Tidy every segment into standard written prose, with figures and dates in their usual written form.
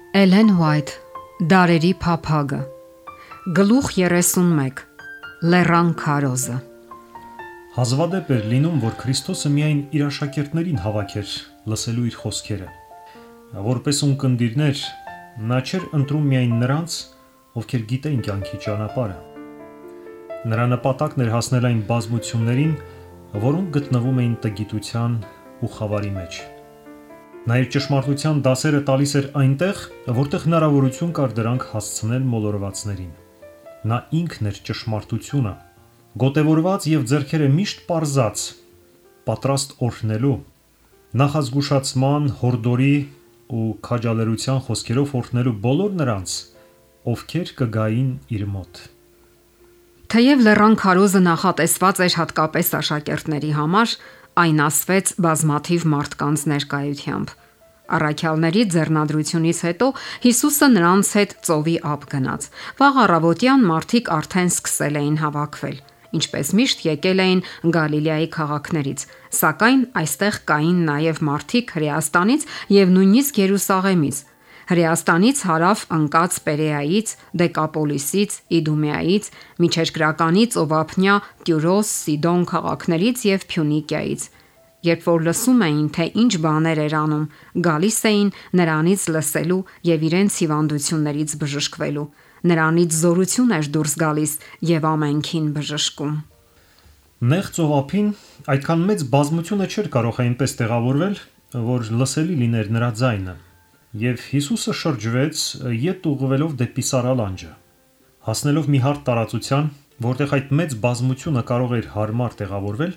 Էլեն Ուայթ, Դարերի փափագը, Գլուխ 31, Լեռան քարոզը։ Հազվադեպ էր լինում, որ Քրիստոսը միայն իր աշակերտներին հավաքեր լսելու իր խոսքերը։ Որպես ունկնդիրներ, նա չէր ընտրում միայն նրանց, ովքեր գիտեին կյանքի ճանապարհը։ Նրա նպատակն էր հասնել այն բազմություններին, որոնք գտնվում էին տգիտության ու խավարի մեջ։ Նա իր ճշմարտության դասերը տալիս էր այնտեղ, որտեղ հնարավորություն կար դրանք հասցնել մոլորվածներին։ Նա ինքն էր ճշմարտությունը, գոտևորված եւ ձեռքերը միշտ պարզած, պատրաստ օրհնելու, նախազգուշացման, հորդորի ու քաջալերության խոսքերով օրհնելու բոլոր նրանց, ովքեր կգային իր մոտ։ Թեև Լեռան քարոզը նախատեսված էր հատկապես աշակերտների համար, այն ասվեց բազմաթիվ մարդկանց ներկայությամբ։ Առաքյալների ձեռնադրությունից հետո Հիսուսը նրանց հետ ծովի ափ գնաց։ Վաղ առավոտյան մարդիկ արդեն սկսել էին հավաքվել, ինչպես միշտ եկել էին Գալիլեայի քաղաքներից, սակայն այստեղ կային նաև մարդիկ Հրեաստանից եւ նույնիսկ Երուսաղեմից։ Հրեաստանից հարավ ընկած Պերեայից, Դեկապոլիսից, Իդումեայից, միջերկրականի ծովափնյա Տյուրոս, Սիդոն քաղաքներից եւ Փյունիկիայից։ Երբ որ լսում էին, թե ինչ բաներ էր անում, գալիս էին նրանից լսելու եւ իրենց հիվանդություններից բժշկվելու։ Նրանից զորություն էր դուրս գալիս եւ ամենքին բժշկում։ Նեղ ծովափին այդքան մեծ բազմությունը չէր կարող այնպես տեղավորվել, որ լսելի լիներ նրա ձայնը, եւ Հիսուսը շրջվեց, ետ ուղղվելով դեպի Սարալանջը։ Հասնելով մի հարթ տարածության, որտեղ այդ մեծ բազմությունը կարող էր հարմար տեղավորվել,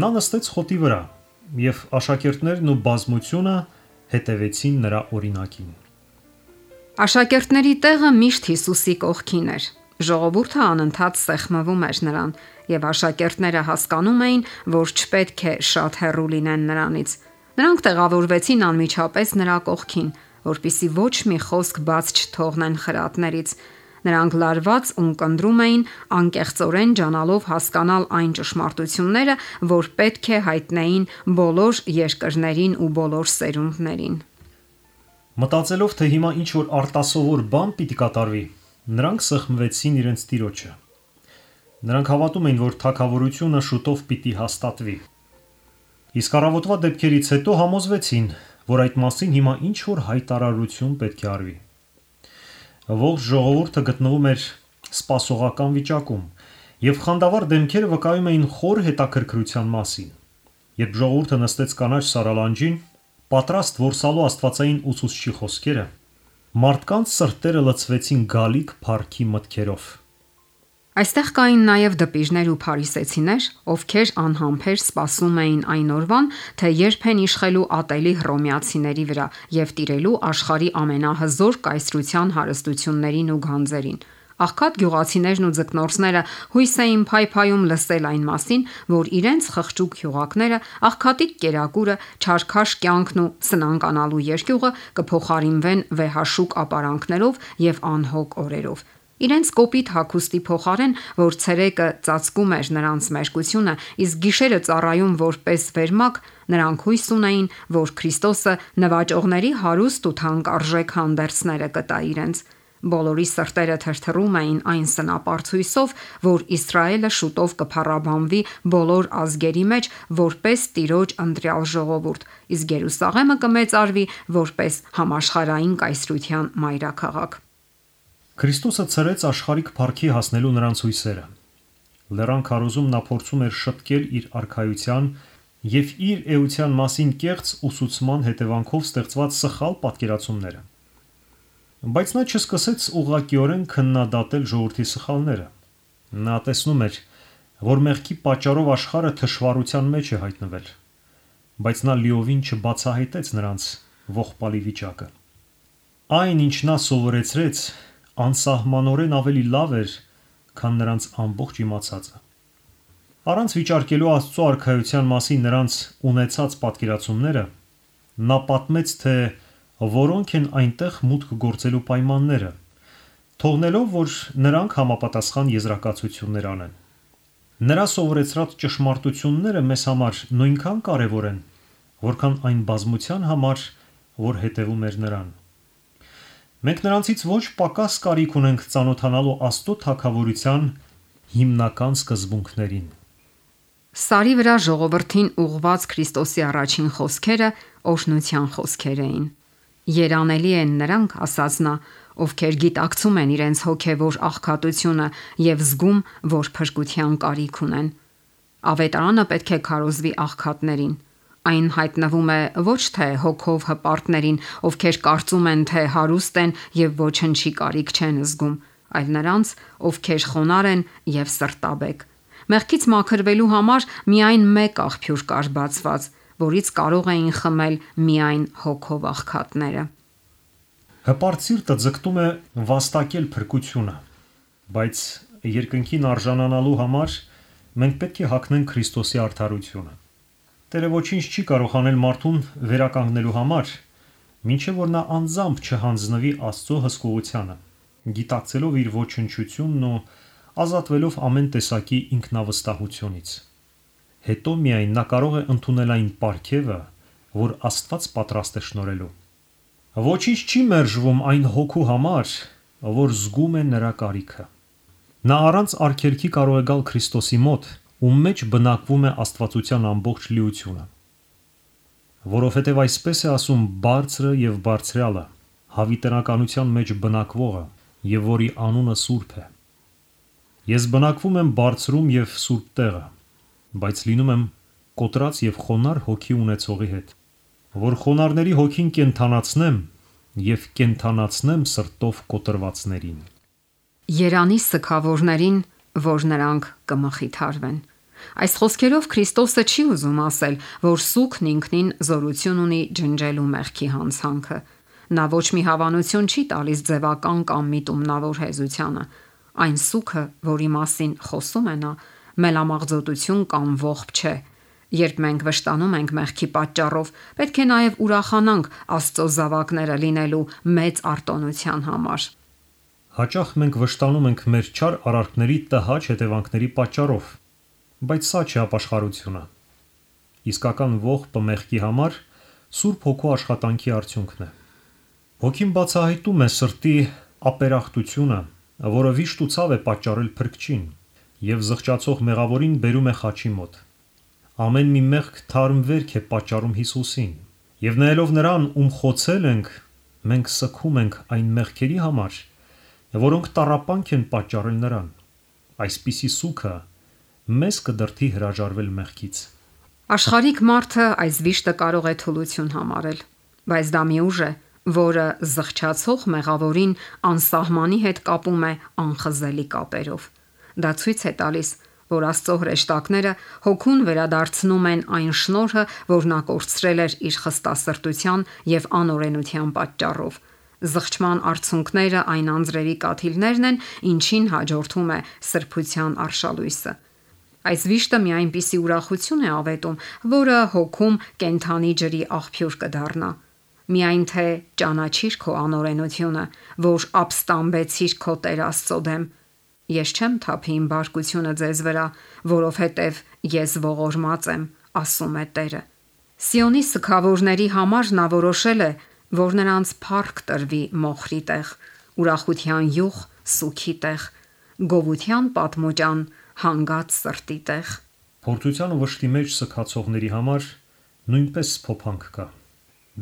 նա նստեց խոտի վրա, եւ աշակերտներն ու բազմությունը հետևեցին նրա օրինակին։ Աշակերտների տեղը միշտ Հիսուսի կողքին էր։ Ժողովուրդը անընդհատ սեղմվում էր նրան, եւ աշակերտները հասկանում էին, որ չպետք է շատ հեռու լինեն նրանից։ Նրանք տեղավորվեցին անմիջապես նրա կողքին, որpիսի ոչ մի խոսք բաց չթողնեն խրատներից։ Նրանք լարված ունկնդրում էին, անկեղծորեն ջանալով հասկանալ այն ճշմարտությունները, որ պետք է հայտնեին բոլոր երկրներին ու բոլոր սերունդներին։ Մտածելով, թե հիմա ինչ որ արտասովոր բան պիտի կատարվի, նրանք սեղմվեցին իրենց տիրոջը։ Նրանք հավատում էին, որ թագավորությունը շուտով պիտի հաստատվի։ Իսկ առավոտվա դեպքերից հետո համոզվեցին, որ այդ մասին հիմա ինչ որ հայտարարություն պետք է արվի։ Ողջ ժողովուրդը գտնվում էր սպասողական վիճակում, եւ խանդավառ դեմքերը վկայում էին խոր հետաքրքրության մասին։ Երբ ժողովուրդը նստեց կանաչ Սարալանջին, պատրաստ որսալու աստվածային ուսուցչի խոսքերը, մարդկանց սրտերը լցվեցին գալիք փառքի մտքերով։ Այստեղ կային նաև դպիժներ ու փարիսեցիներ, ովքեր անհամբեր սպասում էին այն օրվան, թե երբ են իշխելու ատելի հռոմեացիների վրա եւ տիրելու աշխարհի ամենահզոր կայսրության հարստություններին ու գանձերին։ Աղքատ գյուղացիներն ու ձկնորսները հույս էին փայփայում լսել այն մասին, որ իրենց խղճուկ հյուղակները, աղքատիկ կերակուրը, չարքաշ կյանքն ու սնանկանալու երկյուղը կփոխարինվեն վեհաշուկ ապարանքներով եւ անհոգ օրերով։ Իրենց կոպիտ հագուստի փոխարեն, որ ցերեկը ծածկում էր նրանց մերկությունը, իսկ գիշերը ծառայում որպես վերմակ, նրանք հույս ունեին, որ Քրիստոսը նվաճողների հարուստ ու թանկարժեք հանդերձները կտա իրենց։ Բոլորի սրտերը թրթռում էին այն սնապարծ հույսով, որ Իսրայելը շուտով կփառաբանվի բոլոր ազգերի մեջ որպես Տիրոջ ընտրյալ ժողովուրդ, իսկ Երուսաղեմը կմեծարվի որպես համաշխարհային կայսրության մայրաքաղաք։ Քրիստոսը ցրեց աշխարհիկ փառքի հասնելու նրանց հույսերը։ Լեռան քարոզում նա փորձում էր շտկել իր արքայության եւ իր էության մասին կեղծ ուսուցման հետևանքով ստեղծված սխալ պատկերացումները։ Բայց նա չսկսեց ուղղակիորեն քննադատել ժողովրդի սխալները։ Նա տեսնում էր, որ մեղքի պատճառով աշխարհը թշվառության մեջ է հայտնվել, բայց նա լիովին չբացահայտեց նրանց ողբալի վիճակը։ Այն, ինչ նա սովորեցրեց, անսահմանորեն ավելի լավ էր, քան նրանց ամբողջ իմացածը։ Առանց վիճարկելու Աստծո արքայության մասին նրանց ունեցած պատկերացումները, նա պատմեց, թե որոնք են այնտեղ մուտք գործելու պայմանները, թողնելով, որ նրանք համապատասխան եզրակացություններ անեն։ Նրա սովորեցրած ճշմարտությունները մեզ համար նույնքան կարևոր են, որքան այն բազմության համար, որ հետևում էր նրան։ Մենք նրանցից ոչ պակաս կարիք ունենք ծանոթանալու Աստծո թագավորության հիմնական սկզբունքներին։ Սարի վրա ժողովրդին ուղված Քրիստոսի առաջին խոսքերը օրհնության խոսքեր էին։ Երանելի են նրանք, ասաց նա, ովքեր գիտակցում են իրենց հոգևոր աղքատությունը եւ զգում, որ փրկության կարիք ունեն։ Ավետարանը պետք է քարոզվի աղքատներին։ Այն հայտնվում է ոչ թե հոգով հպարտներին, ովքեր կարծում են, թե հարուստ են եւ ոչնչի կարիք չեն զգում, այլ նրանց, ովքեր խոնարհ են եւ սրտաբեկ։ Մեղքից մաքրվելու համար միայն մեկ աղբյուր կար բացված, որից կարող էին խմել միայն հոգով աղքատները։ Հպարտ սիրտը ձգտում է վաստակել փրկությունը, բայց երկնքին արժանանալու համար մենք պետք է հագնենք Քրիստոսի արդարությունը։ Տերը ոչինչ չի կարող անել մարդուն վերականգնելու համար, մինչև որ նա անձամբ չհանձնվի Աստծո հսկողությանը, գիտակցելով իր ոչնչությունն ու ազատվելով ամեն տեսակի ինքնավստահությունից։ Հետո միայն նա կարող է ընդունել այն պարգևը, որ Աստված պատրաստ է շնորհելու։ Ոչինչ չի մերժվում այն հոգու համար, որ զգում է նրա կարիքը։ Նա առանց արգելքի կարող է գալ Քրիստոսի մոտ, ում մեջ բնակվում է աստվածության ամբողջ լիությունը։ Որովհետև այսպես է ասում Բարձրը եւ Բարձրյալը, հավիտենականության մեջ բնակվողը, եւ որի անունը Սուրբ է։ Ես բնակվում եմ բարձրում եւ սուրբ տեղը, բայց լինում եմ կոտրած եւ խոնար հոգի ունեցողի հետ, որ խոնարհների հոգին կենթանացնեմ եւ կենթանացնեմ սրտով կոտրվածներին։ Երանի սգավորներին, որ նրանք կմխիթարվեն։ Այս խոսքերով Քրիստոսը չի ուզում ասել, որ սուգն ինքնին զորություն ունի ջնջելու մեղքի հանցանքը։ Նա ոչ մի հավանություն չի տալիս ձևական կամ միտումնավոր հեզությանը։ Այն սուգը, որի մասին խոսում է նա, մելամաղձոտություն կամ ողբ չէ։ Երբ մենք վշտանում ենք մեղքի պատճառով, պետք է նաև ուրախանանք Աստծո զավակները լինելու մեծ արտոնության համար։ Հաճախ մենք վշտանում ենք մեր չար արարքների տհաճ հետևանքների պատճառով, բայց սա չէ ապաշխարությունը։ Իսկական ողբը մեղքի համար Սուրբ Հոգու աշխատանքի արդյունքն է։ Հոգին բացահայտում է սրտի ապերախտությունը, որը վիշտ ու ցավ է պատճառել փրկչին, եւ զղջացող մեղավորին բերում է խաչի մոտ։ Ամեն մի մեղք թարմ վերք է պատճառում Հիսուսին, եւ նայելով նրան, ում խոցել ենք, մենք սգում ենք այն մեղքերի համար, որոնք տառապանք են պատճառել նրան։ Այսպիսի սուգը մեզ կդրդի հրաժարվել մեղքից։ Աշխարհիկ մարդը այս վիշտը կարող է թուլություն համարել, բայց դա մի ուժ է, որը զղջացող մեղավորին անսահմանի հետ կապում է անխզելի կապերով։ Դա ցույց է տալիս, որ Աստծո հրեշտակները հոգուն վերադարձնում են այն շնորհը, որ նա կորցրել էր իր խստասրտության եւ անօրենության պատճառով։ Զղջման արդյունքները այն անձրևի կաթիլներն են, ինչին հաջորդում է սրբության արշալույսը։ Այս վիշտը մի այնպիսի ուրախություն է ավետում, որը հոգում կենթանի ջրի աղբյուր կդառնա։ Միայն թե ճանաչիր քո անօրենությունը, որ ապստամբեցիր քո Տեր Աստծո դեմ։ Ես չեմ թափի իմ բարկությունը ձեզ վրա, որովհետև ես ողորմած եմ, ասում է Տերը։ Սիոնի սգավորների համար նա որոշել է, որ նրանց փառք տրվի մոխրի տեղ, ուրախության յուղ սուքի տեղ, գովության պատմոճան հանգած սրտի տեղ։ Փորձության ու վշտի մեջ սգացողների համար նույնպես փոփանք կա։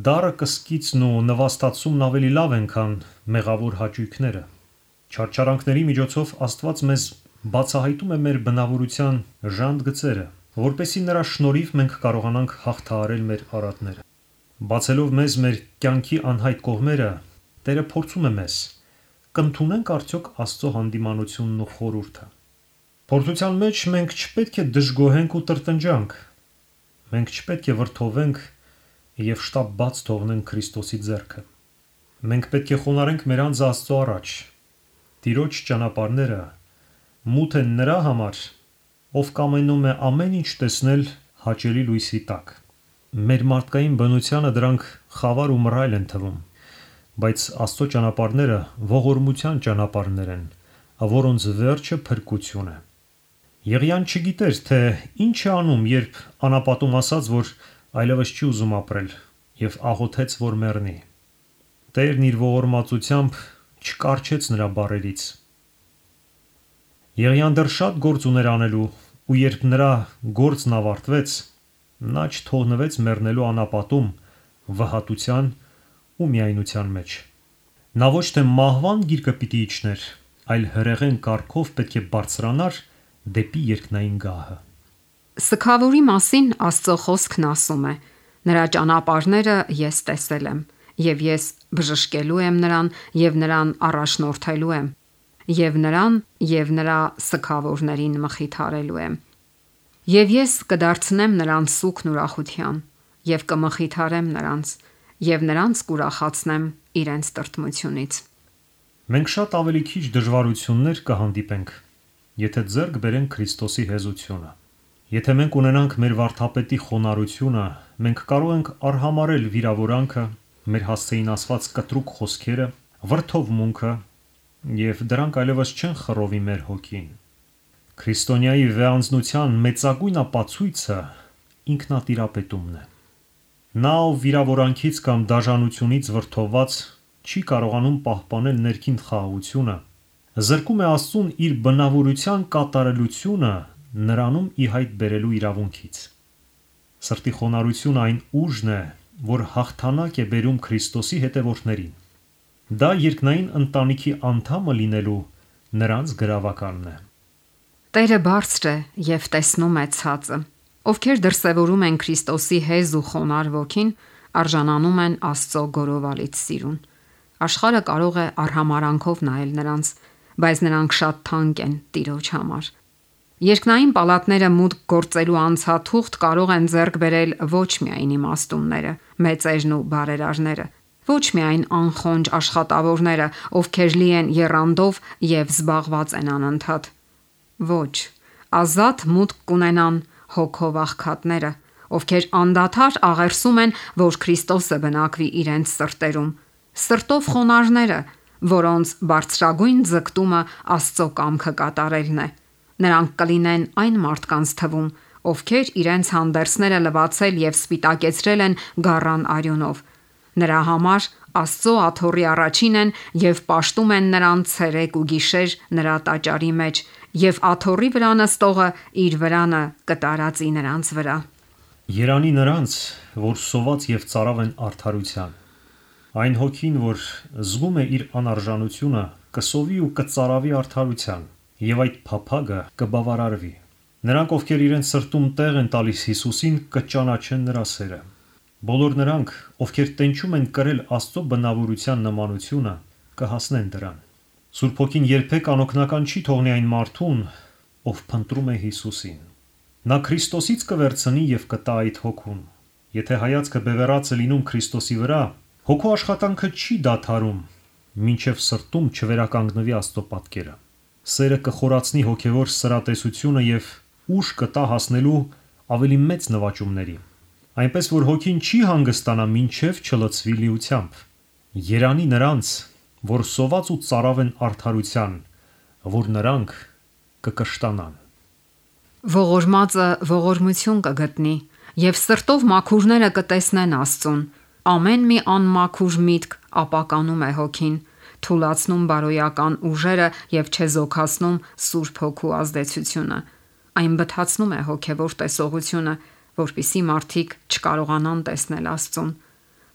Դառը կսկիցն ու նվաստացումն ավելի լավ են, քան մեղավոր հաճույքները։ Չարչարանքների միջոցով Աստված մեզ բացահայտում է մեր բնավորության ժանտ-գծերը, որպեսզի նրա շնորհիվ մենք կարողանանք հաղթահարել մեր արատները։ Բացելով մեզ մեր կյանքի անհայտ կողմերը, Տերը փորձում է մեզ. կընդունենք արդյոք Աստծո հանդիմանությունն ու խորհուրդը։ Փորձության մեջ մենք չպետք է դժգոհենք ու տրտնջանք։ Մենք չպետք է վրդովենք եւ շտապ բաց թողնենք Քրիստոսի ձեռքը։ Մենք պետք է խոնարհենք մեր անձը Աստծո առաջ։ Տիրոջ ճանապարհները մութ են նրա համար, ով կամենում է ամեն ինչ տեսնել հաճելի լույսի տակ։ Մեր մարդկային բնությանը դրանք խավար ու մռայլ են թվում, բայց Աստծո ճանապարհները ողորմության ճանապարհներ են, որոնց վերջը փրկություն է։ Եղիան չգիտեր, թե ինչ է անում, երբ անապատում ասաց, որ այլևս չի ուզում ապրել, եւ աղոթեց, որ մեռնի։ Տերն իր ողորմածությամբ չկարչեց նրա բառերից։ Եղիան դեռ շատ գործ ուներ անելու, ու երբ նրա գործն ավարտվեց, նա չթողնվեց մեռնելու անապատում, վհատության ու միայնության մեջ։ Նա ոչ թե մահվան գիրկը պիտի իջներ, այլ հրեղեն կարգով պետք է բարձրանար դեպի երկնային գահը։ Սքավորի մասին Աստծո խոսքն ասում է. նրա ճանապարհները ես տեսել եմ, եւ ես բժշկելու եմ նրան եւ նրան առաջնորդելու եմ, եւ նրան եւ նրա սքավորներին մխիթարելու եմ։ Եվ ես կդարձնեմ նրանց սուգն ուրախության, եւ կմխիթարեմ նրանց, եւ նրանց կուրախացնեմ իրենց տրտմությունից։ Մենք շատ ավելի քիչ դժվարություններ կհանդիպենք, եթե ձեռք բերենք Քրիստոսի հեզությունը։ Եթե մենք ունենանք մեր վարդապետի խոնարհությունը, մենք կարող ենք արհամարել վիրավորանքը, մեր հասցեին ասված կտրուկ խոսքերը, վրդովմունքը, եւ դրանք այլևս չեն խռովի մեր հոգին։ Քրիստոնյայի վեհանձնության մեծագույն ապացույցը ինքնատիրապետումն է։ Նա, ով վիրավորանքից կամ դաժանությունից վրդովված չի կարողանում պահպանել ներքին խաղաղությունը, զրկում է Աստծուն իր բնավորության կատարելությունը նրանում ի հայտ բերելու իրավունքից։ Սրտի խոնարհությունը այն ուժն է, որ հաղթանակ է բերում Քրիստոսի հետևորդներին։ Դա երկնային ընտանիքի անդամը լինելու նրանց գրավականն է։ Տերը բարձր է եւ տեսնում է ցածը։ Ովքեր դրսևորում են Քրիստոսի հեզ ու խոնարհ ոգին, արժանանում են Աստծո գորովալից սիրուն։ Աշխարհը կարող է արհամարանքով նայել նրանց, բայց նրանք շատ թանկ են Տիրոջ համար։ Երկնային պալատները մուտք գործելու անցաթուղթ կարող են ձեռք բերել ոչ միայն իմաստունները, մեծերն ու բարերարները, ոչ միայն անխոնջ աշխատավորները, ովքեր լի են եռանդով եւ զբաղված են անընդհատ։ Ոչ, ազատ մուտք կունենան հոգով աղքատները, ովքեր անդադար աղերսում են, որ Քրիստոսը բնակվի իրենց սրտերում, սրտով խոնարհները, որոնց բարձրագույն ձգտումը Աստծո կամքը կատարելն է։ Նրանք կլինեն այն մարդկանց թվում, ովքեր իրենց հանդերձները լվացել եւ սպիտակեցրել են գառան արյունով։ Նրա համար Աստծո աթոռի առաջին են եւ պաշտում են նրան ցերեկ ու գիշեր նրա տաճարի մեջ, եւ աթոռի վրա նստողը իր վրանը կտարածի նրանց վրա։ Երանի նրանց, որ սոված եւ ծարավ են արդարության։ Այն հոգին, որ զգում է իր անարժանությունը, կսովի ու կծարավի արդարության, եւ այդ փափագը կբավարարվի։ Նրանք, ովքեր իրենց սրտում տեղ են տալիս Հիսուսին, կճանաչեն նրա սերը։ Բոլոր նրանք, ովքեր տենչում են կրել Աստծո բնավորության նմանությունը, կհասնեն դրան։ Սուրբ Հոգին երբեք անօգնական չի թողնի այն մարդուն, ով փնտրում է Հիսուսին։ Նա Քրիստոսից կվերցնի եւ կտա այդ հոգուն։ Եթե հայացքը բևեռած է լինում Քրիստոսի վրա, հոգու աշխատանքը չի դադարում, մինչև սրտում չվերականգնվի Աստծո պատկերը։ Սերը կխորացնի հոգևոր սրատեսությունը եւ ուժ կտա հասնելու ավելի մեծ նվաճումների։ Այնպես որ հոգին չի հանգստանա մինչև չլցվի լիությամբ։ Երանի նրանց, որ սոված ու ծարավ են արդարության, որ նրանք կկշտանան։ Ողորմածը ողորմություն կգտնի եւ սրտով մաքուրները կտեսնեն Աստծուն։ Ամեն մի անմաքուր միտք ապականում է հոգին, թուլացնում բարոյական ուժերը եւ չեզոքացնում Սուրբ Հոգու ազդեցությունը։ Այն բթացնում է հոգևոր տեսողությունը, որpիսի մարդիկ չկարողանան տեսնել Աստծուն։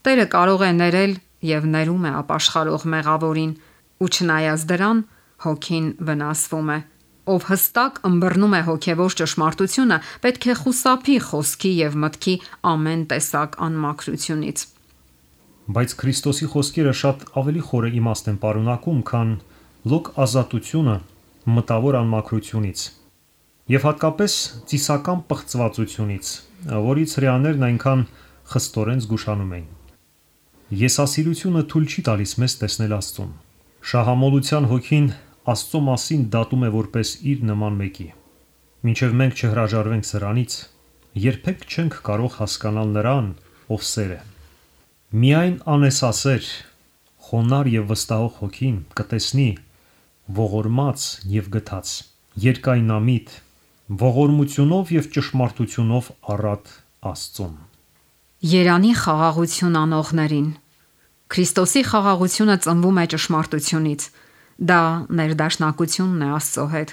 Տերը կարող է ներել եւ ներում է ապաշխարող մեղավորին, ու չնայած դրան հոգին վնասվում է։ Ով հստակ ըմբռնում է հոգևոր ճշմարտությունը, պետք է խուսափի խոսքի եւ մտքի ամեն տեսակ անմաքրությունից։ Բայց Քրիստոսի խոսքերը շատ ավելի խորը իմաստ են պարունակում, քան լոկ ազատությունը մտավոր անմաքրությունից եւ հատկապես ծիսական պղծվածությունից, որից հрьяաներն այնքան խստորեն զգուշանում էին։ Եսասիրությունը թույլ չի տալիս մեզ տեսնել Աստծուն։ Շահամոլության հոգին Աստծո մասին դատում է որպես իր նման մեկի։ Մինչև մենք չհրաժարվենք սրանից, երբեք չենք կարող հասկանալ նրան, ով սեր է։ Միայն անեսասեր, խոնար եւ վստահող հոգին կտեսնի ողորմած եւ գթած, երկայնամիտ, ողորմությունով եւ ճշմարտությունով առատ Աստծուն։ Երանի խաղաղություն անողներին, Քրիստոսի խաղաղությունը ծնվում է ճշմարտությունից։ Դա ներդաշնակությունն է Աստծո հետ։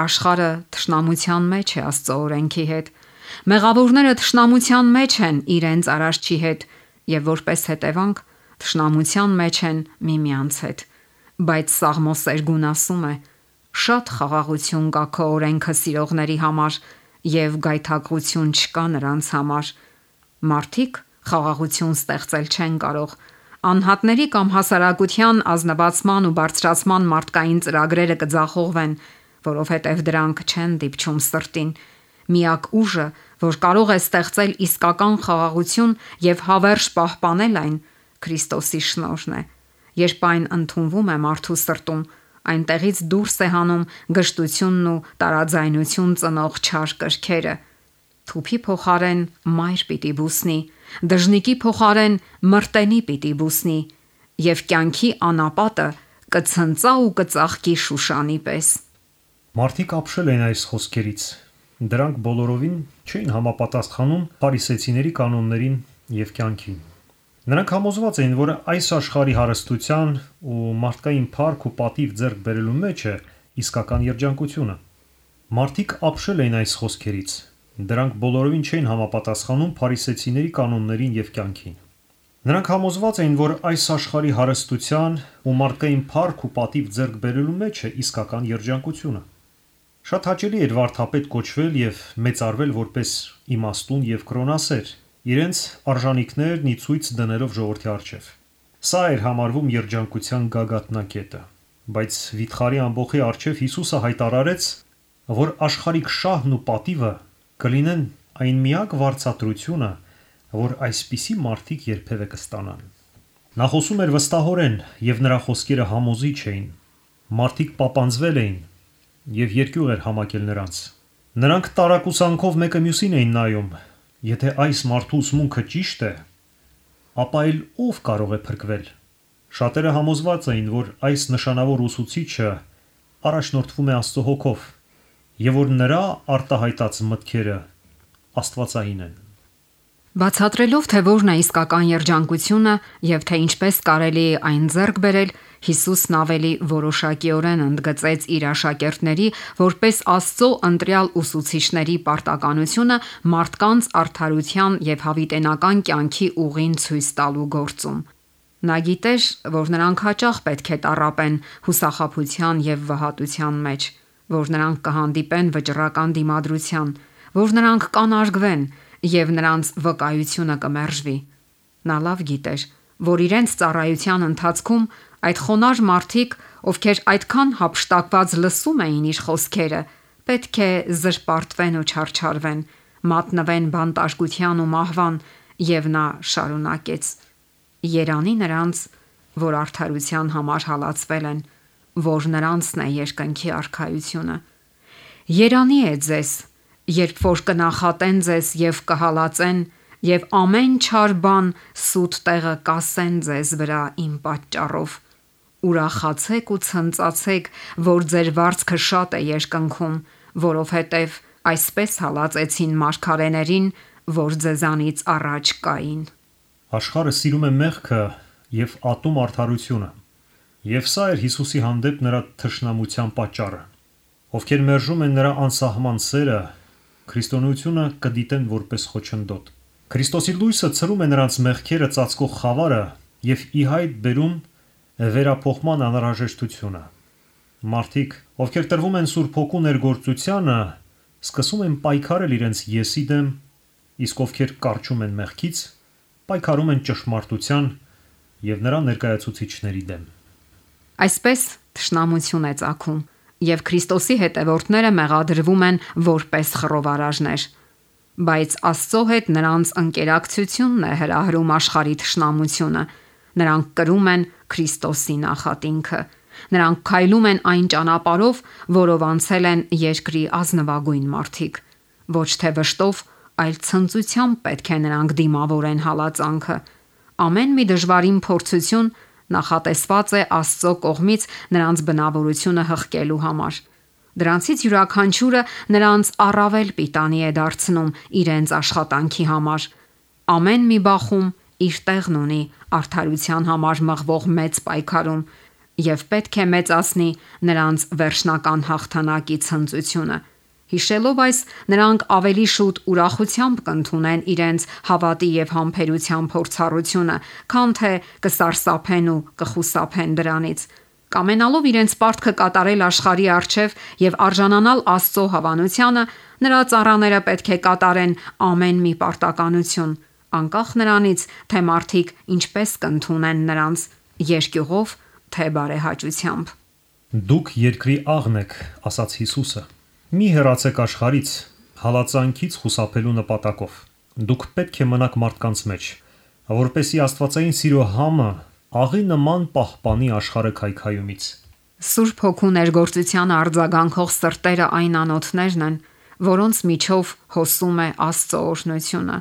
Աշխարհը թշնամության մեջ է Աստծո օրենքի հետ։ Մեղավորները թշնամության մեջ են իրենց Արարչի հետ եւ որպես հետևանք թշնամության մեջ են միմյանց հետ։ Բայց Սաղմոս Սերգուն ասում է. «Շատ խաղաղություն կա քո օրենքը սիրողների համար եւ գայթակղություն չկա նրանց համար»։ Մարդիկ խաղաղություն ստեղծել չեն կարող։ Անհատների կամ հասարակության ազնվացման ու բարձրացման մարդկային ծրագրերը կձախողվեն, որովհետև դրանք չեն դիպչում սրտին։ Միակ ուժը, որ կարող է ստեղծել իսկական խաղաղություն եւ հավերժ պահպանել այն, Քրիստոսի շնորհն է։ Երբ այն ընդունվում է մարդու սրտում, այնտեղից դուրս է հանում գժտությունն ու տարաձայնություն ծնող չար կրքերը։ Թուփի փոխարեն մայր պիտի բուսնի, դժնիկի փոխարեն մրտենի պիտի բուսնի, եւ կյանքի անապատը կցնծա ու կծաղկի Շուշանի պես։ Մարդիկ ապշել են այս խոսքերից։ Դրանք բոլորովին չէին համապատասխանում փարիսեցիների կանոններին եւ կյանքին։ Նրանք համոզված էին, որ այս աշխարհի հարստության ու մարդկային փառք ու պատիվ ձեռք բերելու մեջ է իսկական երջանկությունը։ Մարդիկ ապշել էին այս խոսքերից։ Դրանք բոլորովին չէին համապատասխանում փարիսեցիների կանոններին եւ կյանքին։ Նրանք համոզված էին, որ այս աշխարհի հարստության ու մարդկային փառք ու պատիվ ձեռք բերելու մեջ է իսկական երջանկությունը։ Շատ հաճելի էր վարդապետ կոչվել եւ մեծարվել որպես իմաստուն եւ կրոնասեր, իրենց արժանինքներն ի ցույց դնելով ժողովրդի առջև։ Սա էր համարվում երջանկության գագաթնակետը, բայց վիթխարի ամբոխի առջև Հիսուսը հայտարարեց, որ աշխարհիկ շահն ու պատիվը կլինեն այն միակ վարձատրությունը, որ այսպիսի մարդիկ երբևէ կստանան։ Նա խոսում էր վստահորեն եւ նրա խոսքերը համոզիչ էին։ Մարդիկ պապանձվել էին եւ երկյուղ էր համակել նրանց։ Նրանք տարակուսանքով մեկը մյուսին էին նայում։ Եթե այս մարդու ուսմունքը ճիշտ է, ապա էլ ով կարող է փրկվել։ Շատերը համոզված էին, որ այս նշանավոր ուսուցիչը առաջնորդվում է Աստծո հոգով եւ որ նրա արտահայտած մտքերը աստվածային են։ Բացատրելով, թե որն է իսկական երջանկությունը եւ թե ինչպես կարելի է այն ձեռք բերել, Հիսուսն ավելի որոշակիորեն ընդգծեց իր աշակերտների որպես Աստծո ընտրյալ ուսուցիչների պարտականությունը մարդկանց արդարության եւ հավիտենական կյանքի ուղին ցույց տալու գործում։ Նա գիտեր, որ նրանք հաճախ պետք է տառապեն հուսախաբության եւ վհատության մեջ, որ նրանք կհանդիպեն վճռական դիմադրության, որ նրանք կանարգվեն եւ նրանց վկայությունը կմերժվի։ Նա լավ գիտեր, որ իրենց ծառայության ընթացքում այդ խոնարհ մարդիկ, ովքեր այդքան հափշտակված լսում էին իր խոսքերը, պետք է զրպարտվեն ու չարչարվեն, մատնվեն բանտարկության ու մահվան, եւ նա շարունակեց. Երանի նրանց, որ արդարության համար հալածվել են, որ նրանցն է երկնքի արքայությունը։ Երանի է ձեզ, երբ որ կնախատեն ձեզ եւ կհալածեն եւ ամեն չար բան սուտ տեղը կասեն ձեզ վրա իմ պատճառով։ Ուրախացեք ու ցնծացեք, որ ձեր վարձքը շատ է երկնքում, որովհետև այսպես հալածեցին մարգարեներին, որ ձեզանից առաջ կային։ Աշխարհը սիրում է մեղքը եւ ատում արդարությունը։ Եվ սա էր Հիսուսի հանդեպ նրա թշնամության պատճառը։ Ովքեր մերժում են նրա անսահման սերը, քրիստոնեությունը կդիտեն որպես խոչընդոտ։ Քրիստոսի լույսը ցրում է նրանց մեղքերը ծածկող խավարը եւ ի հայտ բերում վերափոխման անհրաժեշտությունը։ Մարդիկ, ովքեր տրվում են Սուրբ Հոգու ներգործությանը, սկսում են պայքարել իրենց եսի դեմ, իսկ ովքեր կառչում են մեղքից, պայքարում են ճշմարտության եւ նրա ներկայացուցիչների դեմ։ Այսպես թշնամություն է ծագում, եւ Քրիստոսի հետևորդները մեղադրվում են որպես խռովարարներ, բայց Աստծո հետ նրանց ընկերակցությունն է հրահրում աշխարհի թշնամությունը։ Նրանք կրում են Քրիստոսի նախատինքը։ Նրանք քայլում են այն ճանապարհով, որով անցել են երկրի ազնվագույն մարդիկ։ Ոչ թե վշտով, այլ ցնծությամբ պետք է նրանք դիմավորեն հալածանքը։ Ամեն մի դժվարին փորձություն նախատեսված է Աստծո կողմից նրանց բնավորությունը հղկելու համար։ Դրանցից յուրաքանչյուրը նրանց առավել պիտանի է դարձնում իրենց աշխատանքի համար։ Ամեն մի բախում իր տեղն ունի արդարության համար մղվող մեծ պայքարում եւ պետք է մեծացնի նրանց վերջնական հաղթանակի ցնծությունը։ Հիշելով այս, նրանք ավելի շուտ ուրախությամբ կընդունեն իրենց հավատի եւ համբերության փորձառությունը, քան թե կսարսափեն ու կխուսափեն դրանից։ Կամենալով իրենց պարտքը կատարել աշխարհի առջև եւ արժանանալ Աստծո հավանությանը, նրա ծառաները պետք է կատարեն ամեն մի պարտականություն, անկախ նրանից, թե մարդիկ ինչպես կընդունեն նրանց՝ երկյուղով, թե բարեհաճությամբ։ Դուք երկրի աղն եք, ասաց Հիսուսը։ Մի հեռացեք աշխարհից, հալածանքից խուսափելու նպատակով։ Դուք պետք է մնաք մարդկանց մեջ, որպեսզի Աստվածային սիրո համը աղի նման պահպանի աշխարհը քայքայումից։ Սուրբ Հոգու ներգործության արձագանքող սրտերը այն անոթներն են, որոնց միջով հոսում է Աստծո օրհնությունը։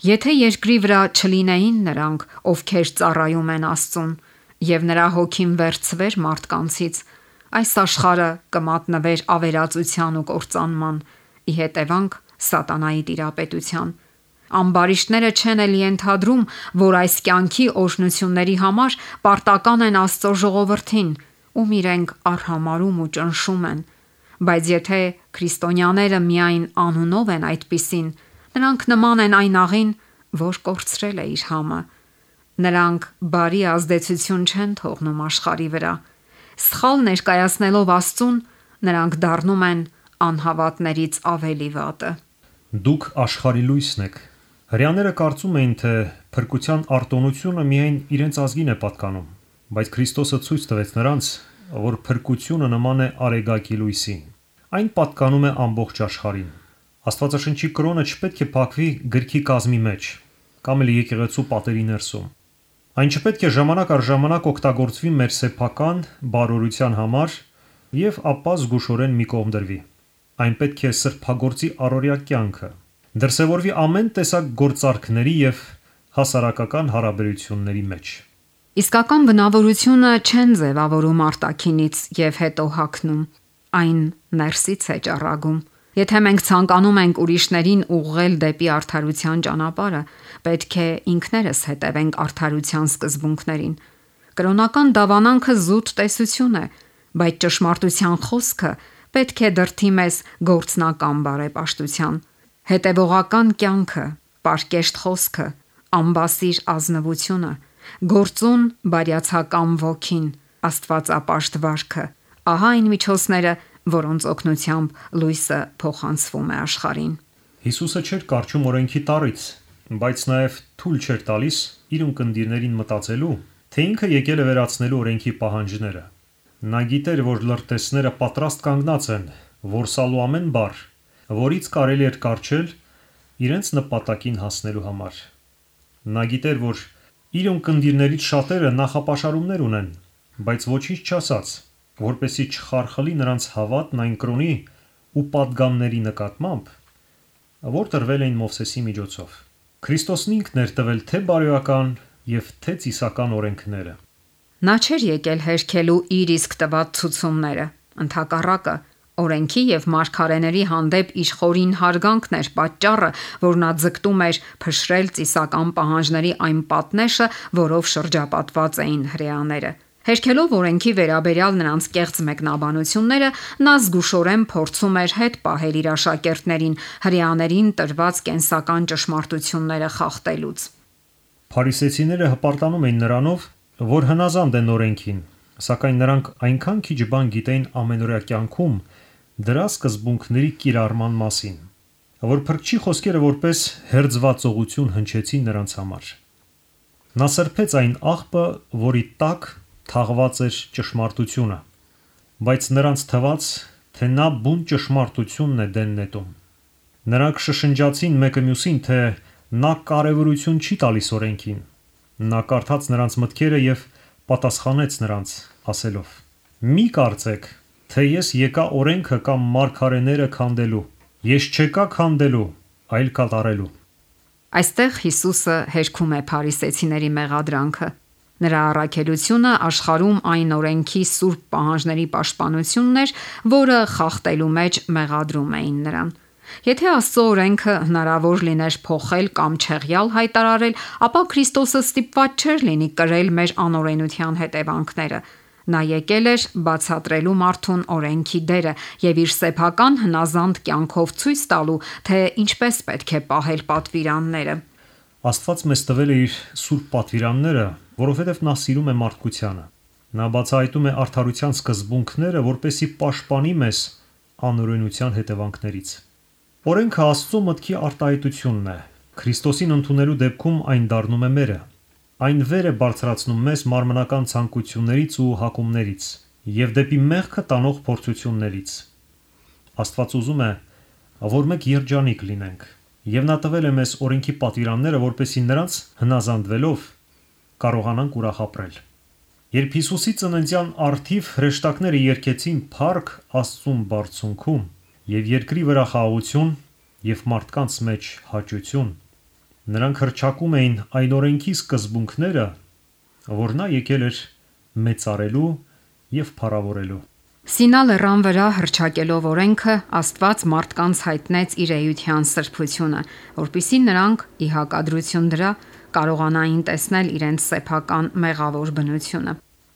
Եթե երկրի վրա չլինեին նրանք, ովքեր ծառայում են Աստծուն, եւ նրա հոգին վերցվեր մարդկանցից, այս աշխարհը կմատնվեր ավերածության ու կործանման, ի հետևանք սատանայի տիրապետության։ Ամբարիշտները չեն էլ ենթադրում, որ այս կյանքի օրհնությունների համար պարտական են Աստծո ժողովրդին, ում իրենք արհամարում ու ճնշում են։ Բայց եթե քրիստոնյաները միայն անունով են այդպիսին, նրանք նման են այն աղին, որ կորցրել է իր համը։ Նրանք բարի ազդեցություն չեն թողնում աշխարհի վրա։ Սխալ ներկայացնելով Աստծուն, նրանք դառնում են անհավատներից ավելի վատը։ Դուք աշխարհի լույսն եք։ Հրեաները կարծում էին, թե փրկության արտոնությունը միայն իրենց ազգին է պատկանում, բայց Քրիստոսը ցույց տվեց նրանց, որ փրկությունը նման է արեգակի լույսին։ Այն պատկանում է ամբողջ աշխարհին։ Աստվածաշնչի կրոնը չպետք է փակվի գրքի կազմի մեջ կամ էլ եկեղեցու պատերի ներսում։ Այն չպետք է ժամանակ առ ժամանակ օգտագործվի մեր սեփական բարօրության համար եւ ապա զգուշորեն մի կողմ դրվի։ Այն պետք է սրբագործի առօրյա կյանքը, դրսևորվի ամեն տեսակ գործարքների եւ հասարակական հարաբերությունների մեջ։ Իսկական բնավորությունը չեն ձևավորում արտաքինից եւ հետո հագնում, այն ներսից է ճառագում։ Եթե մենք ցանկանում ենք ուրիշներին ուղղել դեպի արդարության ճանապարհը, պետք է ինքներս հետևենք արդարության սկզբունքներին։ Կրոնական դավանանքը զուտ տեսություն է, բայց ճշմարտության խոսքը պետք է դրդի մեզ գործնական բարեպաշտության։ Հետևողական կյանքը, պարկեշտ խոսքը, ամբասիր ազնվությունը, գործուն բարյացակամ ոգին, աստվածապաշտ վարքը, ահա այն միջոցները, որոնց օգնությամբ լույսը փոխանցվում է աշխարհին։ Հիսուսը չէր կարճում օրենքի տառից, բայց նաև թույլ չէր տալիս իր ունկնդիրներին մտածելու, թե ինքը եկել է վերացնելու օրենքի պահանջները։ Նա գիտեր, որ լրտեսները պատրաստ կանգնած են որսալու ամեն բառ, որից կարելի էր կառչել իրենց նպատակին հասնելու համար։ Նա գիտեր, որ իր ունկնդիրներից շատերը նախապաշարումներ ունեն, բայց ոչինչ չասաց, որպեսզի չխարխլի նրանց հավատն այն կրոնի ու պատգամների նկատմամբ, որ տրվել էին Մովսեսի միջոցով։ Քրիստոսն ինքն էր տվել թե բարոյական եւ թե ծիսական օրենքները։ Նա չէր եկել հերքելու իր իսկ տված ցուցումները, ընդհակառակը, օրենքի եւ մարգարեների հանդեպ իշխորին հարգանքն էր պատճառը, որ նա ձգտում էր փշրել ծիսական պահանջների այն պատնեշը, որով շրջապատված էին հրեաները։ Հերքելով օրենքի վերաբերյալ նրանց կեղծ մեկնաբանությունները, նա զգուշորեն փորձում էր հետ պահել իր աշակերտներին հրեաներին տրված կենսական ճշմարտությունները խախտելուց։ Փարիսեցիները հպարտանում էին նրանով, որ հնազանդ են օրենքին, սակայն նրանք այնքան քիչ բան գիտեին ամենօրյա կյանքում դրա սկզբունքների կիրառման մասին, որ Փրկչի խոսքերը որպես հերձվածողություն հնչեցին նրանց համար։ Նա սրբեց այն աղբը, որի տակ թաղված էր ճշմարտությունը, բայց նրանց թվաց, թե նա բուն ճշմարտությունն է դեն նետում։ Նրանք շշնջացին մեկը մյուսին, թե նա կարևորություն չի տալիս օրենքին։ Նա կարդաց նրանց մտքերը եւ պատասխանեց նրանց, ասելով. «Մի կարծեք, թե ես եկա օրենքը կամ մարգարեները քանդելու։ Ես չեկա քանդելու, այլ կատարելու»։ Այստեղ Հիսուսը հերքում է փարիսեցիների մեղադրանքը։ Նրա առաքելությունը աշխարհում այն օրենքի սուրբ պահանջների պաշտպանությունն էր, որը խախտելու մեջ մեղադրում էին նրան։ Եթե Աստծո օրենքը հնարավոր լիներ փոխել կամ չեղյալ հայտարարել, ապա Քրիստոսը ստիպված չէր լինի կրել մեր անօրենության հետևանքները։ Նա եկել էր բացատրելու մարդուն օրենքի դերը եւ իր սեփական հնազանդ կյանքով ցույց տալու, թե ինչպես պետք է պահել պատվիրանները։ Աստված մեզ տվել է իր սուրբ պատվիրանները, որովհետև նա սիրում է մարդկությանը։ Նա բացահայտում է արդարության սկզբունքները, որպեսզի պաշտպանի մեզ անօրենության հետևանքներից։ Օրենքը Աստծո մտքի արտահայտությունն է։ Քրիստոսին ընդունելու դեպքում այն դառնում է մերը։ Այն վեր է բարձրացնում մեզ մարմնական ցանկություններից ու հակումներից եւ դեպի մեղքը տանող փորձություններից։ Աստված ուզում է, որ մենք երջանիկ լինենք, եւ նա տվել է մեզ օրենքի պատվիրանները, որպեսզի նրանց հնազանդվելով կարողանանք ուրախ ապրել։ Երբ Հիսուսի ծննդյան առթիվ հրեշտակները երգեցին «Փառք Աստծուն բարձունքում» եւ երկրի վրա խաղաղություն եւ մարդկանց մեջ հաճություն, նրանք հռչակում էին այն օրենքի սկզբունքները, որ նա եկել էր մեծարելու եւ փառավորելու։ Սինա լեռան վրա հռչակելով օրենքը, Աստված մարդկանց հայտնեց իր էության սրբությունը, որպիսի նրանք ի հակադրություն դրա կարողանային տեսնել իրենց սեփական մեղավոր բնությունը։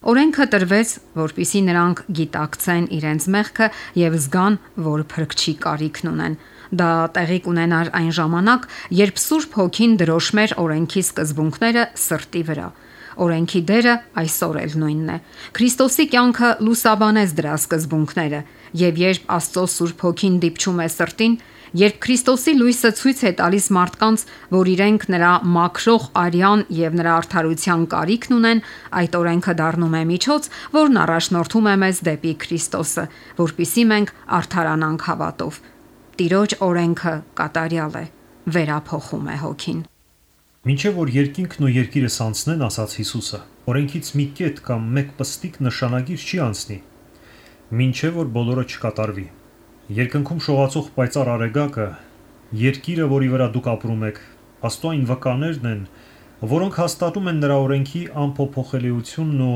Օրենքը տրվեց, որպիսի նրանք գիտակցեն իրենց մեղքը եւ զգան, որ փրկչի կարիքն ունեն։ Դա տեղի կունենար այն ժամանակ, երբ Սուրբ Հոգին դրոշմեր օրենքի սկզբունքները սրտի վրա։ Օրենքի դերը այսօր էլ նույնն է։ Քրիստոսի կյանքը լուսաբանեց դրա սկզբունքները, եւ երբ Աստծո Սուրբ Հոգին դիպչում է սրտին, երբ Քրիստոսի լույսը ցույց է տալիս մարդկանց, որ իրենք նրա մաքրող արյան եւ նրա արդարության կարիքն ունեն, այդ օրենքը դառնում է միջոց, որն առաջնորդում է մեզ դեպի Քրիստոսը, որpիսի մենք արդարանանք հավատով։ Տիրոջ օրենքը կատարյալ է, վերափոխում է հոգին։ Մինչև որ երկինքն ու երկիրը սանցնեն, ասաց Հիսուսը, օրենքից մի կետ կամ մեկ պստիկ նշանագիր չի անցնի, մինչև որ բոլորը չկատարվի։ Երկնքում շողացող պայծառ արեգակը, երկիրը, որի վրա դուք ապրում եք, Աստծո այն վկաներն են, որոնք հաստատում են նրա օրենքի անփոփոխելիությունն ու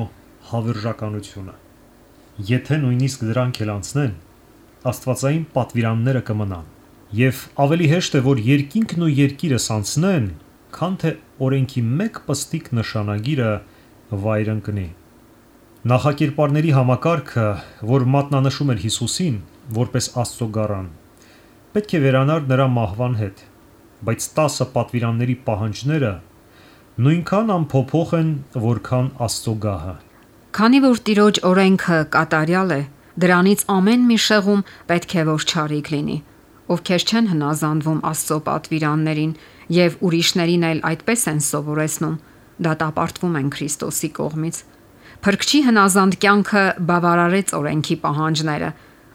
հավերժականությունը։ Եթե նույնիսկ դրանք էլ անցնեն, աստվածային պատվիրանները կմնան, եւ ավելի հեշտ է, որ երկինքն ու երկիրը սանցնեն, քան թե օրենքի մեկ պստիկ նշանագիրը վայր ընկնի։ Նախակերպարների համակարգը, որ մատնանշում էր Հիսուսին որպես Աստծո գառան, պետք է վերանար նրա մահվան հետ, բայց 10 պատվիրանների պահանջները նույնքան անփոփոխ են, որքան Աստծո գահը։ Քանի որ Տիրոջ օրենքը կատարյալ է, դրանից ամեն մի շեղում պետք է որ չարիք լինի։ Ովքեր չեն հնազանդվում Աստծո պատվիրաններին եւ ուրիշներին էլ այդպես են սովորեցնում, դատապարտվում են Քրիստոսի կողմից։ Փրկչի հնազանդ կյանքը բավարարեց օրենքի պահանջները։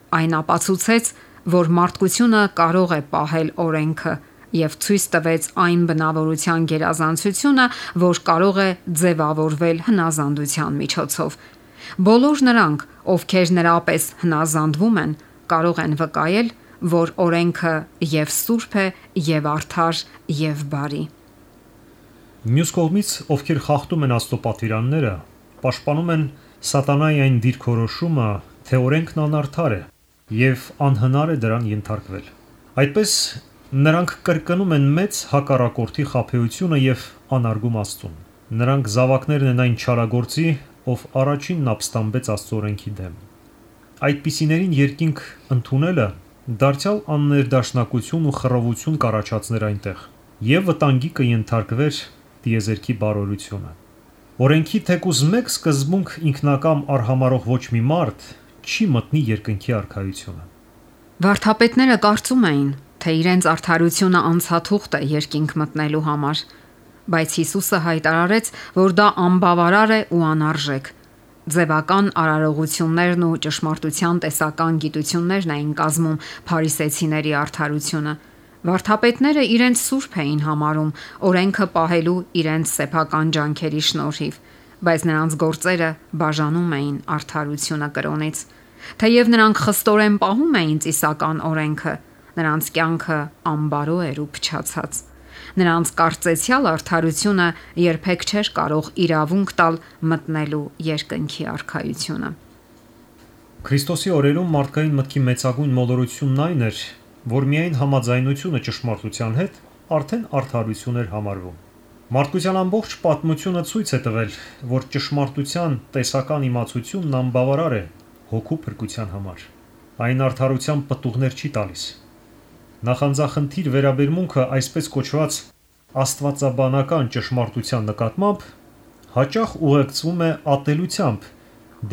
Այն ապացուցեց, որ մարդկությունը կարող է պահել օրենքը եւ ցույց տվեց այն բնավորության գերազանցությունը, որ կարող է ձևավորվել հնազանդության միջոցով։ Բոլոր նրանք, ովքեր նրապես հնազանդվում են, կարող են վկայել, որ օրենքը եւ սուրբ է, եւ արդար, եւ բարի։ Մյուս կողմից, ովքեր խախտում են Աստծո պատվիրանները, պաշտպանում են սատանայի այն դիրքորոշումը, թե օրենքն անարդար է եւ անհնար է դրան ենթարկվել։ Այդպես նրանք կրկնում են մեծ հակառակորդի խաբեությունը եւ անարգում Աստծուն։ Նրանք զավակներն են այն չարագործի, ով առաջինն ապստամբեց Աստծո օրենքի դեմ։ Այդպիսիներին երկինք ընդունելը դարձյալ աններդաշնակություն ու խռովություն կառաջացներ այնտեղ եւ վտանգի կենթարկվեր տիեզերքի բարօրությունը։ Օրենքի թեկուզ մեկ սկզբունք ինքնակամ արհամարող ոչ մի մարդ չի մտնի երկնքի արքայությունը։ Վարդապետները կարծում էին, թե իրենց արդարությունը անցաթուղթ է երկինք մտնելու համար, բայց Հիսուսը հայտարարեց, որ դա անբավարար է ու անարժեք։ Ձևական արարողություններն ու ճշմարտության տեսական գիտություններն էին կազմում փարիսեցիների արդարությունը։ Վարդապետները իրենց սուրբ էին համարում օրենքը պահելու իրենց սեփական ջանքերի շնորհիվ, բայց նրանց գործերը բաժանում էին արդարությունը կրոնից։ Թեև նրանք խստորեն պահում էին ծիսական օրենքը, նրանց կյանքը անբարո էր ու փչացած։ Նրանց կարծեցյալ արդարությունը երբեք չէր կարող իրավունք տալ մտնելու երկնքի արքայությունը։ Քրիստոսի օրերում մարդկային մտքի մեծագույն մոլորությունն այն էր, որ միայն համաձայնությունը ճշմարտության հետ արդեն արդարություն էր համարվում։ Մարդկության ամբողջ պատմությունը ցույց է տվել, որ ճշմարտության տեսական իմացությունն անբավարար է հոգու փրկության համար։ Այն արդարության պտուղներ չի տալիս։ Նախանձախնդիր վերաբերմունքը այսպես կոչված աստվածաբանական ճշմարտության նկատմամբ հաճախ ուղեկցվում է ատելությամբ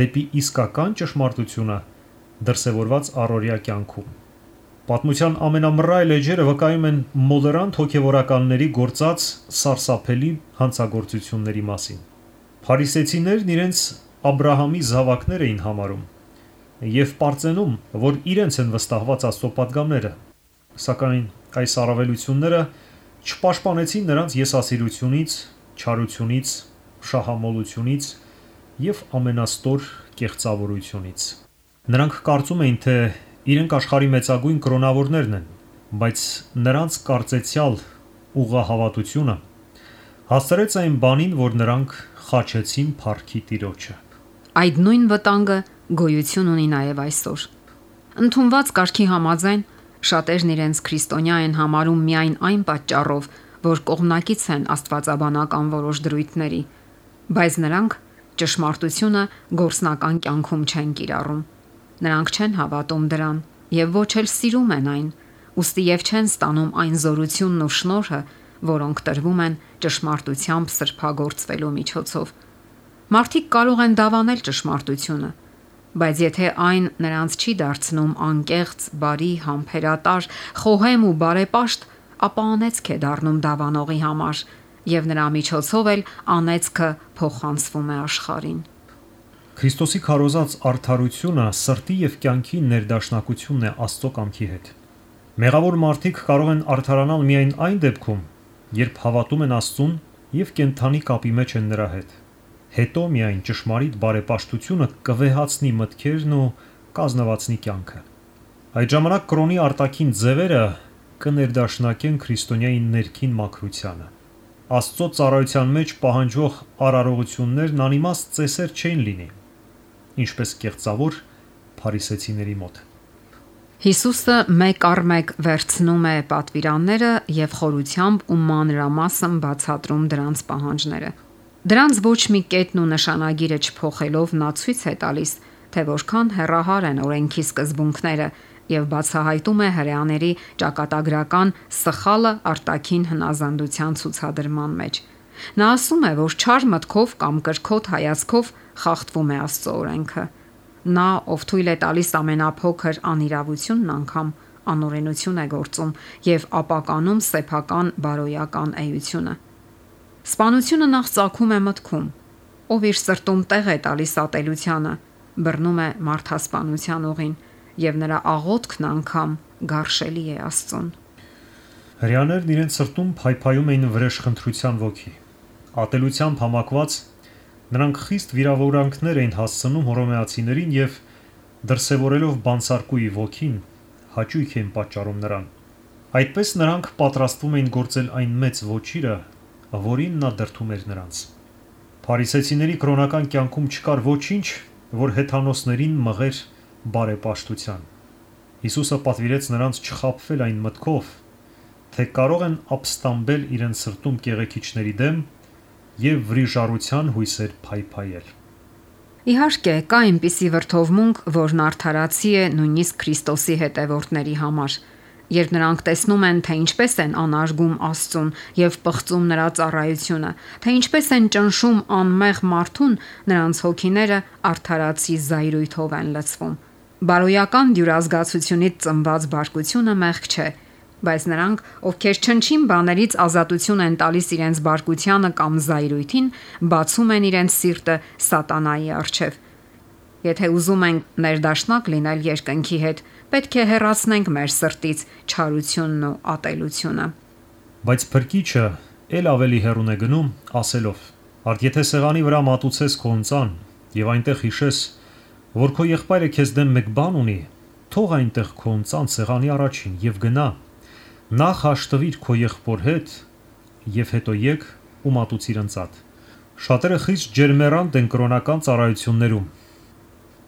դեպի իսկական ճշմարտությունը դրսևորված առօրյա կյանքում։ Պատմության ամենամռայլ էջերը վկայում են մոլերանտ հոգևորականների գործած սարսափելի հանցագործությունների մասին։ Փարիսեցիներն իրենց Աբրահամի զավակներ էին համարում եւ պարծենում, որ իրենց են վստահված Աստծո պատգամները, սակայն այս առավելությունները չպաշտպանեցին նրանց եսասիրությունից, չարությունից, շահամոլությունից եւ ամենաստոր կեղծավորությունից։ Նրանք կարծում էին, թե իրենք աշխարհի մեծագույն կրոնավորներն են, բայց նրանց կարծեցյալ ուղղահավատությունը հասցրեց այն բանին, որ նրանք խաչեցին փառքի Տիրոջը։ Այդ նույն վտանգը գոյություն ունի նաև այսօր։ Ընդունված կարգի համաձայն շատերն իրենց քրիստոնյա են համարում միայն այն պատճառով, որ կողմնակից են աստվածաբանական որոշ դրույթների, բայց նրանք ճշմարտությունը գործնական կյանքում չեն կիրառում։ Նրանք չեն հավատում դրան եւ ոչ էլ սիրում են այն, ուստի եւ չեն ստանում այն զորությունն ու շնորհը, որոնք տրվում են ճշմարտությամբ սրբագործվելու միջոցով։ Մարդիկ կարող են դավանել ճշմարտությունը, բայց եթե այն նրանց չի դարձնում անկեղծ, բարի, համբերատար, խոհեմ ու բարեպաշտ, ապա անեծք է դառնում դավանողի համար եւ նրա միջոցով էլ անեծքը փոխանցվում է աշխարհին։ Քրիստոսի քարոզած արդարությունը սրտի եւ կյանքի ներդաշնակությունն է Աստծո կամքի հետ։ Մեղավոր մարդիկ կարող են արդարանալ միայն այն դեպքում, երբ հավատում են Աստծուն եւ կենթանի կապի մեջ են նրա հետ։ Հետո միայն ճշմարիտ բարեպաշտությունը կվեհացնի մտքերն ու կազնվացնի կյանքը։ Այդ ժամանակ կրոնի արտաքին ձևերը կներդաշնակեն քրիստոնյայի ներքին մաքրությանը։ Աստծո ծառայության մեջ պահանջվող արարողություններն անիմաստ ծեսեր չէին լինի, ինչպես կեղծավոր փարիսեցիների մոտ։ Հիսուսը մեկ առ մեկ վերցնում է պատվիրանները եւ խորությամբ ու մանրամասն բացատրում դրանց պահանջները։ Դրանց ոչ մի կետն ու նշանագիրը չփոխելով նա ցույց է տալիս, թե որքան հեռահար են օրենքի սկզբունքները եւ բացահայտում է հրեաների ճակատագրական սխալը արտաքին հնազանդության ցուցադրման մեջ։ Նա ասում է, որ չար մտքով կամ կրքոտ հայացքով խախտվում է Աստծո օրենքը։ Նա, ով թույլ է տալիս ամենափոքր անիրավությունն անգամ, անօրենություն է գործում եւ ապականում սեփական բարոյական էությունը։ Սպանությունը նախ ծագում է մտքում, ով իր սրտում տեղ է տալիս ատելությանը, բռնում է մարդասպանության ուղին եւ նրա աղոթքն անգամ գարշելի է Աստծուն։ Հրեաներն իրենց սրտում փայփայում էին վրեժխնդրության ոգի։ Ատելությամբ համակված նրանք խիստ վիրավորանքներ էին հասցնում հռոմեացիներին եւ դրսևորելով բանսարկուի ոգին հաճույք էին պատճառում նրան։ Այդպես նրանք պատրաստվում էին գործել այն մեծ ոչիրը, որին նա դրդում էր նրանց։ Փարիսեցիների կրոնական կյանքում չկար ոչինչ, որ հեթանոսներին մղեր բարեպաշտության։ Հիսուսը պատվիրեց նրանց չխաբվել այն մտքով, թե կարող են ապստամբել իրենց սրտում կեղեքիչների դեմ եւ վրիժառության հույսեր փայփայել։ Իհարկե, կա այնպիսի վրդովմունք, որն արդարացի է նույնիսկ Քրիստոսի հետևորդների համար, երբ նրանք տեսնում են, թե ինչպես են անարգում Աստծուն եւ պղծում նրա ծառայությունը, թե ինչպես են ճնշում անմեղ մարդուն, նրանց հոգիները արդարացի զայրույթով են լցվում։ Բարոյական դյուրազգացությունից ծնված բարկությունը մեղք չէ, բայց նրանք, ովքեր չնչին բաներից ազատություն են տալիս իրենց բարկությանը կամ զայրույթին, բացում են իրենց սիրտը սատանայի առջև։ Եթե ուզում ենք ներդաշնակ լինել երկնքի հետ, պետք է հեռացնենք մեր սրտից չարությունն ու ատելությունը։ Բայց փրկիչը ել ավելի հեռուն է գնում, ասելով. «Արդ եթե սեղանի վրա մատուցես քո ընծան եւ այնտեղ հիշես, որ քո եղբայրը քեզ դեմ մեկ բան ունի, թող այնտեղ քո ընծան սեղանի առաջին եւ գնա, նախ հաշտվիր քո եղբոր հետ եւ հետո եկ ու մատուցիր ընծատ»։ Շատերը խիստ ջերմեռանդ են կրոնական ծառայություններում։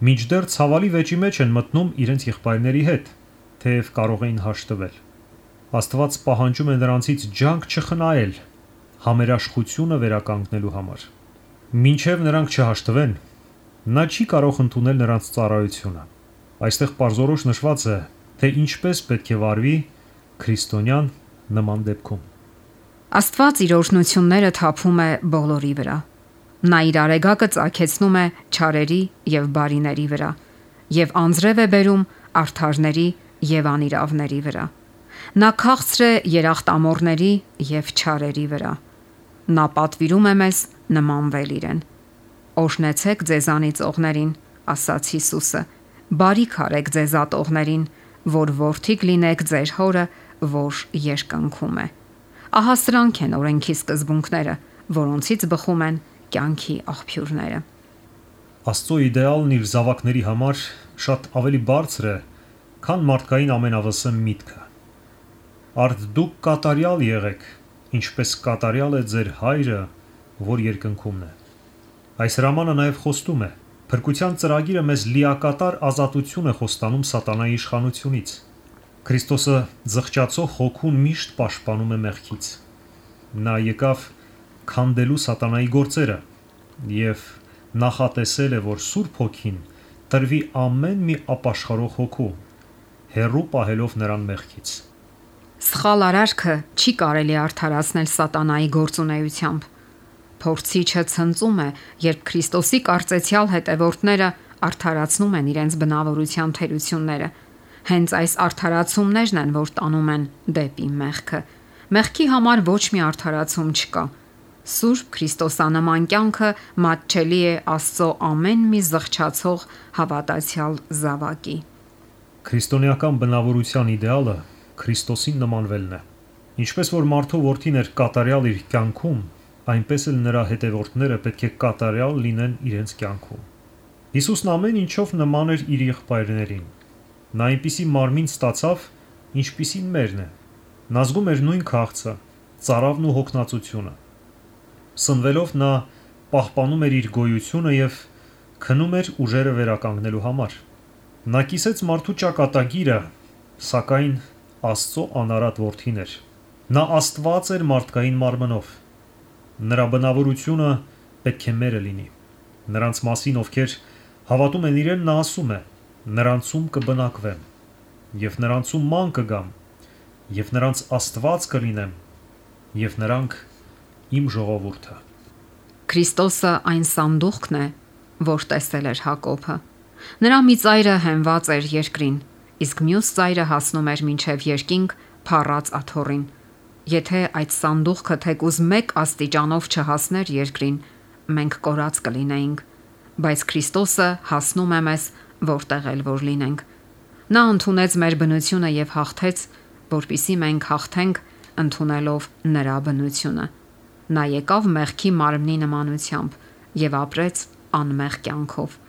Մինչդեռ ցավալի վեճի մեջ են մտնում իրենց եղբայրների հետ, թեև կարող էին հաշտվել։ Աստված պահանջում է նրանցից ջանք չխնայել համերաշխությունը վերականգնելու համար։ Մինչև նրանք չհաշտվեն, նա չի կարող ընդունել նրանց ծառայությունը։ Այստեղ պարզորոշ նշված է, թե ինչպես պետք է վարվի քրիստոնյան նման դեպքում։ Աստված իր օրհնությունները թափում է բոլորի վրա։ Նա իր արեգակը ծագեցնում է չարերի եւ բարիների վրա եւ անձրև է բերում արդարների եւ անիրավների վրա։ Նա քաղցր է երախտամոռների եւ չարերի վրա։ Նա պատվիրում է մեզ նմանվել իրեն։ Օրհնեցեք ձեզանից ողներին, ասաց Հիսուսը, բարիք արեք ձեզ ատողներին, որ որդիք լինեք ձեր հորը, որ երկնքում է։ Ահա սրանք են օրենքի սկզբունքները, որոնցից բխում են կյանքի աղբյուրները։ Աստծո իդեալն իր զավակների համար շատ ավելի բարձր է, քան մարդկային ամենավսեմ միտքը։ Արդ դուք կատարյալ եղեք, ինչպես կատարյալ է ձեր հայրը, որ երկնքումն է։ Այս հրամանը նաև խոստում է. փրկության ծրագիրը մեզ լիակատար ազատություն է խոստանում սատանայի իշխանությունից։ Քրիստոսը զղջացող հոգուն միշտ պաշտպանում է մեղքից։ Նա եկավ քանդելու սատանայի գործերը եւ նախատեսել է, որ Սուրբ Հոգին տրվի ամեն մի ապաշխարող հոգու, հեռու պահելով նրան մեղքից։ Սխալ արարքը չի կարելի արդարացնել սատանայի գործունեությամբ։ Փորձիչը ցնծում է, երբ Քրիստոսի կարծեցյալ հետևորդները արդարացնում են իրենց բնավորության թերությունները։ Հենց այս արդարացումներն են, որ տանում են դեպի մեղքը։ Մեղքի համար ոչ մի արդարացում չկա։ Սուրբ Քրիստոսանման կյանքը մատչելի է Աստծո ամեն մի զղջացող հավատացյալ զավակի։ Քրիստոնեական բնավորության իդեալը Քրիստոսին նմանվելն է։ Ինչպես որ մարդու որդին էր կատարյալ իր կյանքում, այնպես էլ նրա հետևորդները պետք է կատարյալ լինեն իրենց կյանքում։ Հիսուսն ամեն ինչով նման էր իր եղբայրներին։ Նա այնպիսի մարմին ստացավ, ինչպիսին մերն է։ Նա զգում էր նույն քաղցը, ծարավն ու հոգնածությունը։ Սնվելով նա պահպանում էր իր գոյությունը եւ քնում էր ուժերը վերականգնելու համար։ Նա կիսեց մարդու ճակատագիրը, սակայն Աստծո անարատ որդին էր։ Նա Աստված էր մարդկային մարմնով։ Նրա բնավորությունը պետք է մերը լինի։ Նրանց մասին, ովքեր հավատում են իրեն, նա ասում է. նրանցում կբնակվեմ, եւ նրանցում ման կգամ, եւ նրանց Աստված կլինեմ, եւ նրանք իմ ժողովուրդը։ Քրիստոսը այն սանդուղքն է, որ տեսել էր Հակոբը։ Նրա մի ծայրը հենված էր երկրին, իսկ մյուս ծայրը հասնում էր մինչև երկինք փառած աթոռին։ Եթե այդ սանդուղքը թեկուզ 1 աստիճանով չհասներ երկրին, մենք կորած կլինեինք, բայց Քրիստոսը հասնում է մեզ, որտեղ էլ որ լինենք։ Նա ընդունեց մեր բնությունը եւ հաղթեց, որpիսի մենք հաղթենք ընդունելով նրա բնությունը։ Նա եկավ մեղքի մարմնի նմանությամբ եւ ապրեց անմեղ կյանքով։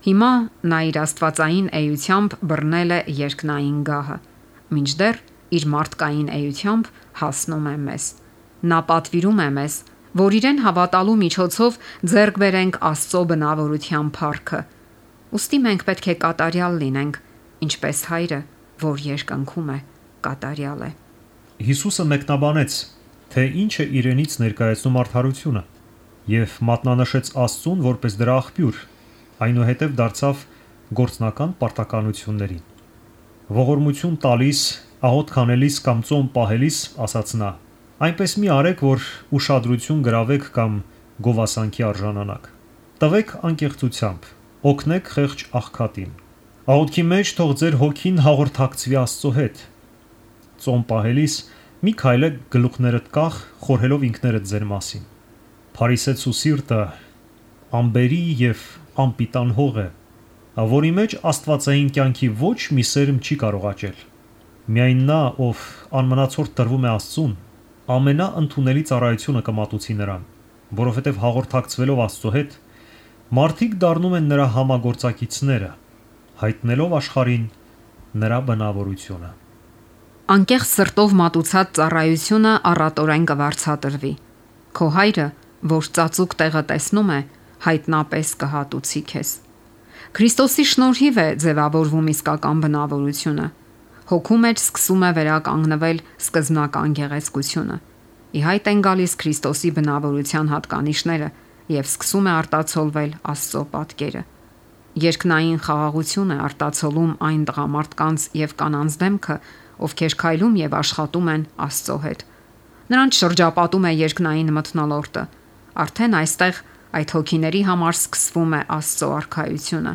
Հիմա նա իր աստվածային էությամբ բռնել է երկնային գահը, մինչդեռ իր մարդկային էությամբ հասնում է մեզ։ Նա պատվիրում է մեզ, որ իրեն հավատալու միջոցով ձեռք բերենք Աստծո բնավորության փառքը։ Ուստի մենք պետք է կատարյալ լինենք, ինչպես հայրը, որ երկնքում է, կատարյալ է։ Հիսուսը մեկնաբանեց, թե ինչ է իրենից ներկայացնում արդարությունը, եւ մատնանշեց Աստծուն որպես դրա աղբյուր, այնուհետև դարձավ գործնական պարտականություններին։ Ողորմություն տալիս, աղոթ քանելիս կամ ծոմ պահելիս, ասաց նա, այնպես մի արեք, որ ուշադրություն գրավեք կամ գովասանքի արժանանաք։ Տվեք անկեղծությամբ, օգնեք խեղճ աղքատին։ Աղոթքի մեջ թող ձեր հոգին հաղորդակցվի Աստծո հետ։ Ծոմ պահելիս մի քայլեք գլուխներդ կախ, խորհելով ինքներդ ձեր մասին։ Փարիսեցու սիրտը ամբերի եւ անպիտան հող է, որի մեջ աստվածային կյանքի ոչ մի սերմ չի կարող աճել։ Միայն նա, ով անմնացորդ տրվում է Աստծուն, ամենաընդունելի ծառայությունը կմատուցի նրան, որովհետև հաղորդակցվելով Աստծո հետ, մարդիկ դառնում են նրա համագործակիցները, հայտնելով աշխարհին նրա բնավորությունը։ Անկեղծ սրտով մատուցած ծառայությունը առատորեն կվարձատրվի։ Քո հայրը, որ ծածուկ տեղը տեսնում է, հայտնապես կհատուցի քեզ։ Քրիստոսի շնորհիվ է ձևավորվում իսկական բնավորությունը։ Հոգու մեջ սկսում է վերականգնվել սկզբնական գեղեցկությունը։ Ի հայտ են գալիս Քրիստոսի բնավորության հատկանիշները եւ սկսում է արտացոլվել Աստծո պատկերը։ Երկնային խաղաղություն է արտացոլում այն տղամարդկանց եւ կանանց դեմքը, ովքեր քայլում եւ աշխատում են Աստծո հետ։ Նրանց շրջապատում է երկնային մթնոլորտը։ Արդեն այստեղ այդ հոգիների համար սկսվում է Աստծո արքայությունը։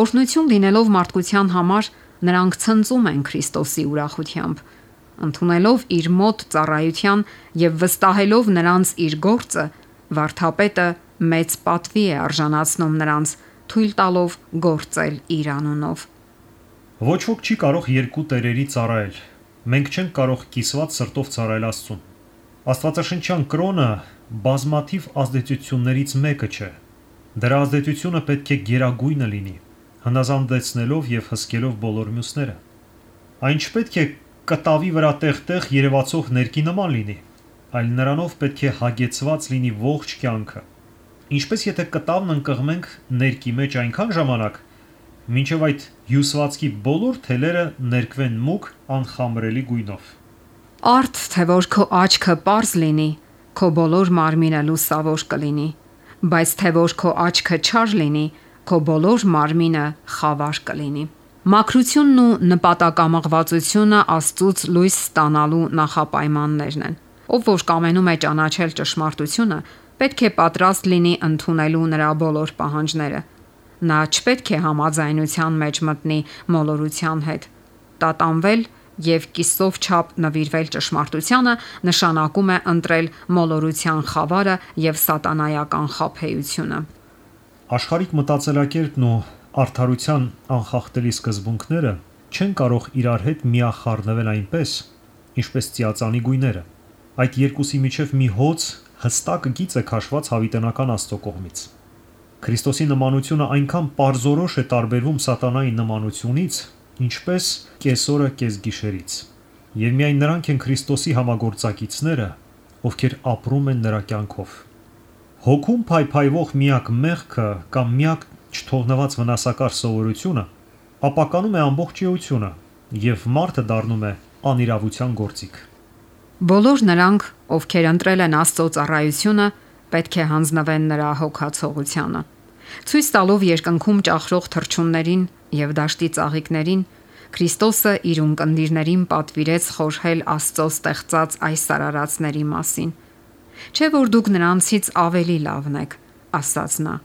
Օրհնություն լինելով մարդկության համար, նրանք ցնծում են Քրիստոսի ուրախությամբ, ընդունելով իր մոտ ծառայության եւ վստահելով նրանց իր գործը, վարդապետը մեծ պատվի է արժանացնում նրանց, թույլ տալով գործել իր անունով։ Ոչ ոք չի կարող երկու տերերի ծառայել։ Մենք չենք կարող կիսված սրտով ծառայել Աստծուն։ Աստվածաշնչյան կրոնը բազմաթիվ ազդեցություններից մեկը չէ։ Դրա ազդեցությունը պետք է գերագույնը լինի, հնազանդեցնելով եւ հսկելով բոլոր մյուսները։ Այն չպետք է կտավի վրա տեղ-տեղ երևացող ներկի նման լինի, այլ նրանով պետք է հագեցված լինի ողջ կյանքը։ Ինչպես եթե կտավն ընկղմենք ներկի մեջ այնքան ժամանակ, մինչև այդ հյուսվածքի բոլոր թելերը ներկվեն մուգ անխամրելի գույնով։ Արդ թե որ քո աչքը պարզ լինի, քո բոլոր մարմինը լուսավոր կլինի, բայց թե որ քո աչքը չար լինի, քո բոլոր մարմինը խավար կլինի։ Մաքրությունն ու նպատակամղվածությունը Աստծուց լույս ստանալու նախապայմաններն են։ Ով որ կամենում է ճանաչել ճշմարտությունը, պետք է պատրաստ լինի ընդունելու նրա բոլոր պահանջները։ Նա չպետք է համաձայնության մեջ մտնի մոլորության հետ։ Տատանվել եւ կիսով չափ նվիրվել ճշմարտությանը նշանակում է ընտրել մոլորության խավարը եւ սատանայական խաբեությունը։ Աշխարհիկ մտածելակերպն ու արդարության անխախտելի սկզբունքները չեն կարող իրար հետ միախառնվել այնպես, ինչպես ծիածանի գույները։ Այդ երկուսի միջև մի հոծ հստակ գիծ է քաշված հավիտենական Աստծո կողմից։ Քրիստոսի նմանությունը այնքան պարզորոշ է տարբերվում սատանայի նմանությունից, ինչպես կեսօրը կեսգիշերից։ Եվ միայն նրանք են Քրիստոսի համագործակիցները, ովքեր ապրում են նրա կյանքով։ Հոգում փայփայվող միակ մեղքը կամ միակ չթողնված վնասակար սովորությունը ապականում է ամբողջ էությունը եւ մարդը դառնում է անիրավության գործիք։ Բոլոր նրանք, ովքեր ընտրել են Աստծո ծառայությունը, պետք է հանձնվեն նրա հոգացողությանը։ Ցույց տալով երկնքում ճախրող թռչուններին եւ դաշտի ծաղիկներին, Քրիստոսը իր ունկնդիրներին պատվիրեց խորհել Աստծո ստեղծած այս արարածների մասին։ Չէ որ դուք նրանցից ավելի լավն եք, ասաց նա։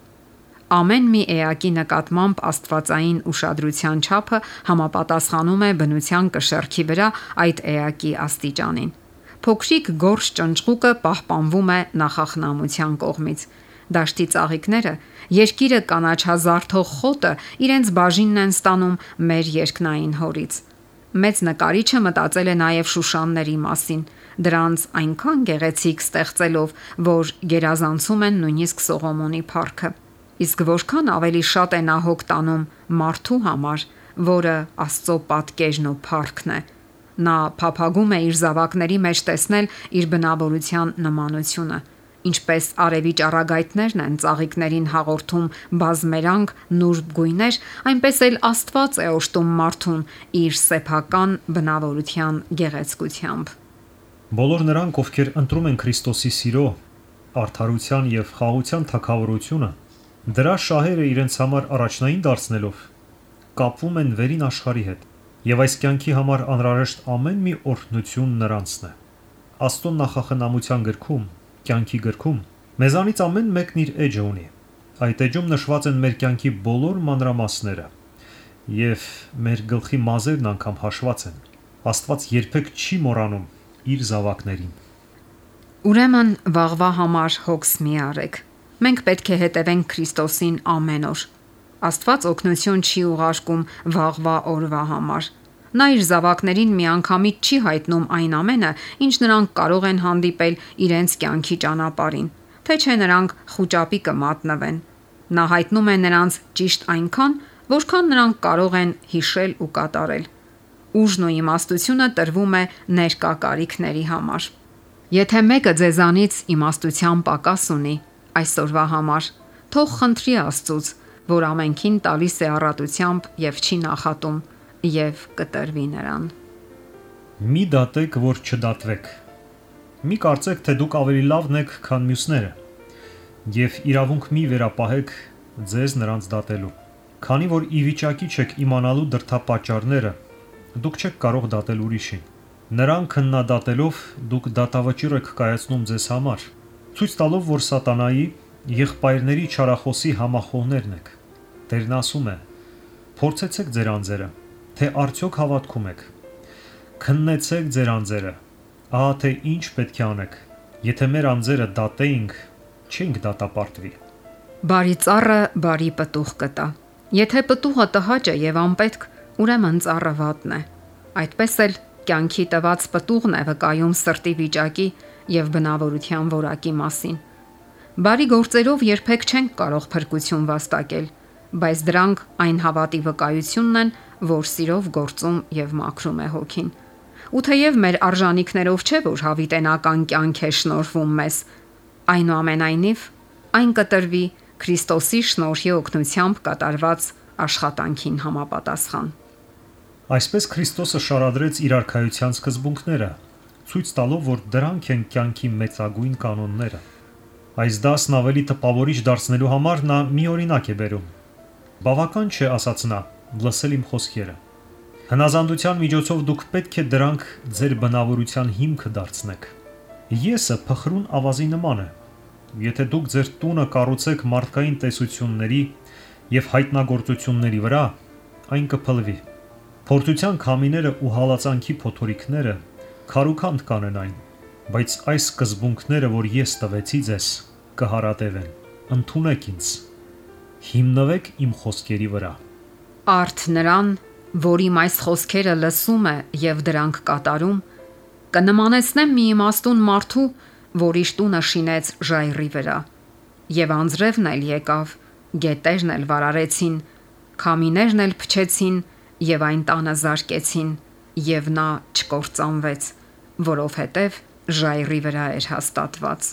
Ամեն մի էակի նկատմամբ աստվածային ուշադրության չափը համապատասխանում է բնության կշեռքի վրա այդ էակի աստիճանին։ Փոքրիկ գորշ ճնճղուկը պահպանվում է նախախնամության կողմից։ Դաշտի ծաղիկները, երկիրը կանաչազարդող խոտը իրենց բաժինն են ստանում մեր երկնային հորից։ Մեծ նկարիչը մտածել է նաև շուշանների մասին, դրանց այնքան գեղեցիկ ստեղծելով, որ գերազանցում են նույնիսկ Սողոմոնի փառքը։ Իսկ որքան ավելի շատ է նա հոգ տանում մարդու համար, որը Աստծո պատկերն ու փառքն է։ Նա փափագում է իր զավակների մեջ տեսնել իր բնավորության նմանությունը, ինչպես արևի ճառագայթներն են ծաղիկներին հաղորդում բազմերանգ նուրբ գույներ, այնպես էլ Աստված է օժտում մարդուն իր սեփական բնավորության գեղեցկությամբ։ Բոլոր նրանք, ովքեր ընտրում են Քրիստոսի սիրո, արդարության եւ խաղաղության թագավորությունը, դրա շահերը իրենց համար առաջնային դարձնելով, կապվում են վերին աշխարհի հետ, եւ այս կյանքի համար անհրաժեշտ ամեն մի օրհնություն նրանցն է։ Աստծո նախախնամության գրքում, կյանքի գրքում, մեզանից ամեն մեկն իր էջը ունի։ Այդ էջում նշված են մեր կյանքի բոլոր մանրամասները, եւ մեր գլխի մազերն անգամ հաշված են։ Աստված երբեք չի մոռանում իր զավակներին։ Ուրեմն վաղվա համար հոգս մի արեք։ Մենք պետք է հետևենք Քրիստոսին ամեն օր։ Աստված օգնություն չի ուղարկում վաղվա օրվա համար։ Նա իր զավակներին միանգամից չի հայտնում այն ամենը, ինչ նրանք կարող են հանդիպել իրենց կյանքի ճանապարհին, թե չէ նրանք խուճապի կմատնվեն։ Նա հայտնում է նրանց ճիշտ այնքան, որքան նրանք կարող են հիշել ու կատարել։ Ուժն ու իմաստությունը տրվում է ներկա կարիքների համար։ Եթե մեկը ձեզանից իմաստության պակաս ունի այսօրվա համար, թող խնդրի Աստծուց, որ ամենքին տալիս է առատությամբ եւ չի նախատում, եւ կտրվի նրան։ Մի դատեք, որ չդատվեք։ Մի կարծեք, թե դուք ավելի լավն եք, քան մյուսները, եւ իրավունք մի վերապահեք ձեզ նրանց դատելու։ Քանի որ ի վիճակի չեք իմանալու դրդապատճառները, դուք չեք կարող դատել ուրիշին։ Նրան քննադատելով դուք դատավճիռ եք կայացնում ձեզ համար, ցույց տալով, որ սատանայի եղբայրների չարախոսի համախոհներն եք։ Տերն ասում է. փորձեցեք ձեր անձերը, թե արդյոք հավատքում եք։ Քննեցեք ձեր անձերը, ահա թե ինչ պետք է անեք։ Եթե մեր անձերը դատեինք, չենք դատապարտվի։ Բարի ծառը բարի պտուղ կտա։ Եթե պտուղը տհաճ է եւ անպետք, ուրեմն ծառը վատն է։ Այդպես էլ կյանքի տված պտուղն է վկայում սրտի վիճակի եւ բնավորության որակի մասին։ Բարի գործերով երբեք չենք կարող փրկություն վաստակել, բայց դրանք այն հավատի վկայությունն են, որ սիրով գործում եւ մաքրում է հոգին։ Ու թեև մեր արժանինքներով չէ, որ հավիտենական կյանք է շնորհվում մեզ, այնուամենայնիվ այն կտրվի Քրիստոսի շնորհի օգնությամբ կատարված աշխատանքին համապատասխան։ Այսպես Քրիստոսը շարադրեց իր արքայության սկզբունքները, ցույց տալով, որ դրանք են կյանքի մեծագույն կանոնները։ Այս դասն ավելի տպավորիչ դարձնելու համար նա մի օրինակ է բերում։ Բավական չէ, ասաց նա, լսել իմ խոսքերը։ Հնազանդության միջոցով դուք պետք է դրանք ձեր բնավորության հիմքը դարձնեք։ Եսը փխրուն ավազի նման է։ Եթե դուք ձեր տունը կառուցեք մարդկային տեսությունների եւ հայտնագործությունների վրա, այն կփլվի։ Փորձության քամիները ու հալածանքի փոթորիկները քարուքանդ կանեն, բայց այս սկզբունքները, որ ես տվեցի ձեզ, կհարատևեն։ Ընդունեք ինձ։ Հիմնվեք իմ խոսքերի վրա։ Արդ նրան, որ իմ այս խոսքերը լսում է եւ դրանք կատարում, կնմանեցնեմ մի իմաստուն մարդու, որ իր տունը շինեց ժայռի վրա, եւ անձրևն էլ եկավ, գետերն էլ վարարեցին, քամիներն էլ փչեցին եւ այն տանը զարկեցին, եւ նա չկործանվեց, որովհետեւ ժայռի վրա էր հաստատված։